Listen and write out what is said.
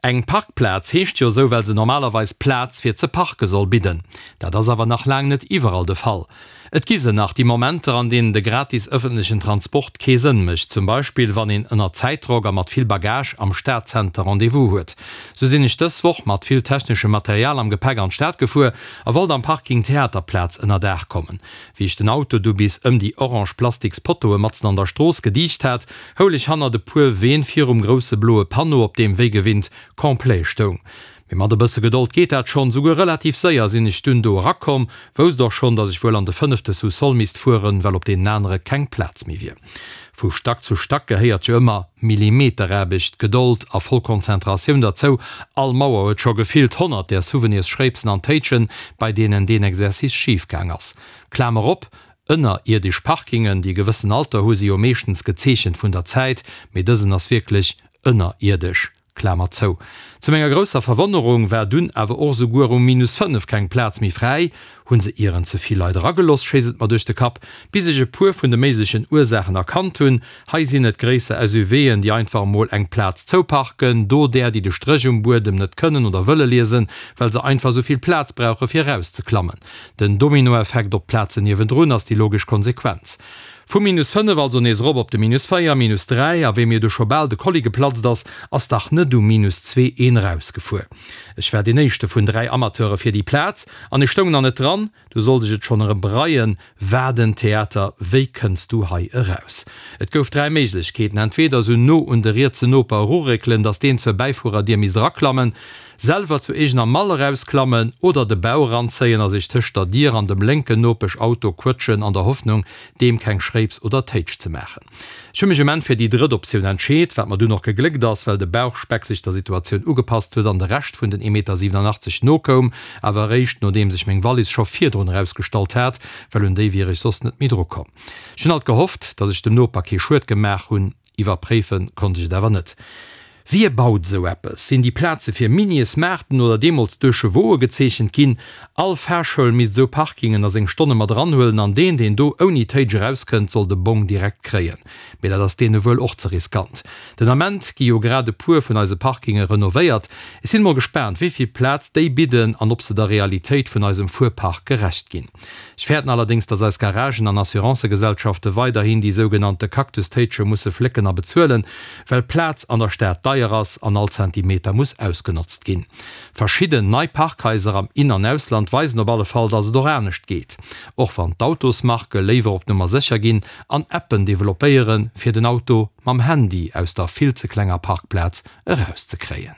Eng Parkplaz heescht jo esou, well se normalerweis Plaz fir ze parke soll bidden. Dat ass awer nach laang net iwwerall de Fall. Et gi se nach, déi Momenter, an deenen de gratis ëffentlechen Transport kee Sënn mécht, zum Beispill wann een ënner Zäitdrock a mat vill Bagage am Stadzenter Rendez-vous huet. Sou sinn ech dës Woch mat vill techneschem Material am Gepäck an d'Stad gefuer a wollt am Parking Theaterplaz ënnerdaach kommen. Wéi ech den Auto du bis ëm déi orange plastiks Pottoe matzen an der Strooss gediicht hat, houl ech hannert e puer Ween virum grousse bloe Panneau, op deem wéi gewinnt Complet stoung. Mee mat e bësse Gedold geet dat schonn. Souguer relativ séier sinn ech dunn do erakomm, wousst och schonn, dass ech wuel an de fënnefte Sous-sol misst fueren, well op deenen anere keng Plaz méi wier. Vu Stack zu Stack gehéiert jo ëmmer Millimeteraarbecht, Gedold a voll Konzentratioun derzou. All Mauer huet scho gefillt 100 där Souvenirsschréipsen an Téitschen, bei deenen deen Exercice schif gaang ass. Klamer op, Ënnerierdesch Parkingen, déi e gewëssen Alter hu, si jo meeschtens gezeechent vun der Zäit, mee dësen ass wierklech ënnerierdesch. Klamer zou. Zu menger grousser Verwonnerung war dunn awer och esouguer um minus 5 keng Plaz méi fräi. Hunn se ieren ze vill Leit erageloss, schéisst et mer duerch de Kapp, bis ech e puer vun de méiglechen Ursaachen erkannt hunn. Hei sinn et gréisser SUVen, déi einfach emol eng Plaz zouparken, do där, déi de Stréch um Buedem net kënnen oder wëlle liesen, well se einfach esou vill Plaz brauche fir erauszeklammen. Den Dominoeffekt op d'Plazen niewendrun ass déi logesch Konsequenz. Vu minus 5 also nees erop op de minus 4, minus 3, a wéi mir du scho bal de Kolli geplatzt ass, ass dach net um minus 2 een erausgefuer. Ech war deen éischte vun 3 Amateure fir déi Plaz, an ech stoung nach net dran, du sollt ech et schonn erëm bereien. Wat en Theater, wéi kënns du hei eraus? Et gouf 3 Méiglechkeeten, entweder esou no un de rietse Noper eruréckelen, dass deen zur Bäifuererdier misst eraklammen, Selwer zu eegener Mall erausklammen oder de Bauch eranzéien a sech tëscht der Dier an dem lénken Nopeschauto quëtschen an der Hoffnung, deem keng Schréips oder Téitsch ze maachen. Ech hu mech um Enn fir déi drëtt Optioun entscheet, wat mer dunn och gegléckt ass, well de Bauchspeck sech der Situatioun ugepasst huet an de Rescht vun den 1,87 Meter nokoum, awer eréischt nodeems ech meng Wallis scho virdrun erausgestallt hat, well un déi wier ech soss net méi drukomm. Ech hunn alt gehofft, dass ech dem Noper kee Schued gemaach hunn. Iwwerpréife konnt ech et awer net. Wie baut esou eppes? Sinn déi Plaze fir Miniesmaarten oder deemools Deux-Chevaux'e gezeechent ginn? All Fahrschoul misst esou Parkingen a seng Stonne mat eranhuelen an deen, deen do ouni Téitsch erauskënnt, soll de Bong direkt kréien. Mee dat ass deene wuel och ze riskant. Den Ament gi jo grad e puer vun eise Parkinge renovéiert. Ech sinn emol gespaant, wéi vill Plaz déi bidden an ob se der Realitéit vun eisem Fuerpark gerecht ginn. Ech fäerten allerdéngs, dass eis Garagen an Assurancëgesellschafte weiderhin déi sougenannte Cactus-Téitsche musse flécken a bezuelen, well Plaz an der Stad deier ass an all Zentimeter muss ausgenotzt ginn. Verschidden nei Parkhaiser am In an Ausland weisen op alle Fall, dass et och anescht geet, och wann d'Autosmarke léiwer op Nummer sécher ginn an Appen developpéieren, fir den Auto mam Handy aus der vill ze klenger Parkplaz erauszekréien.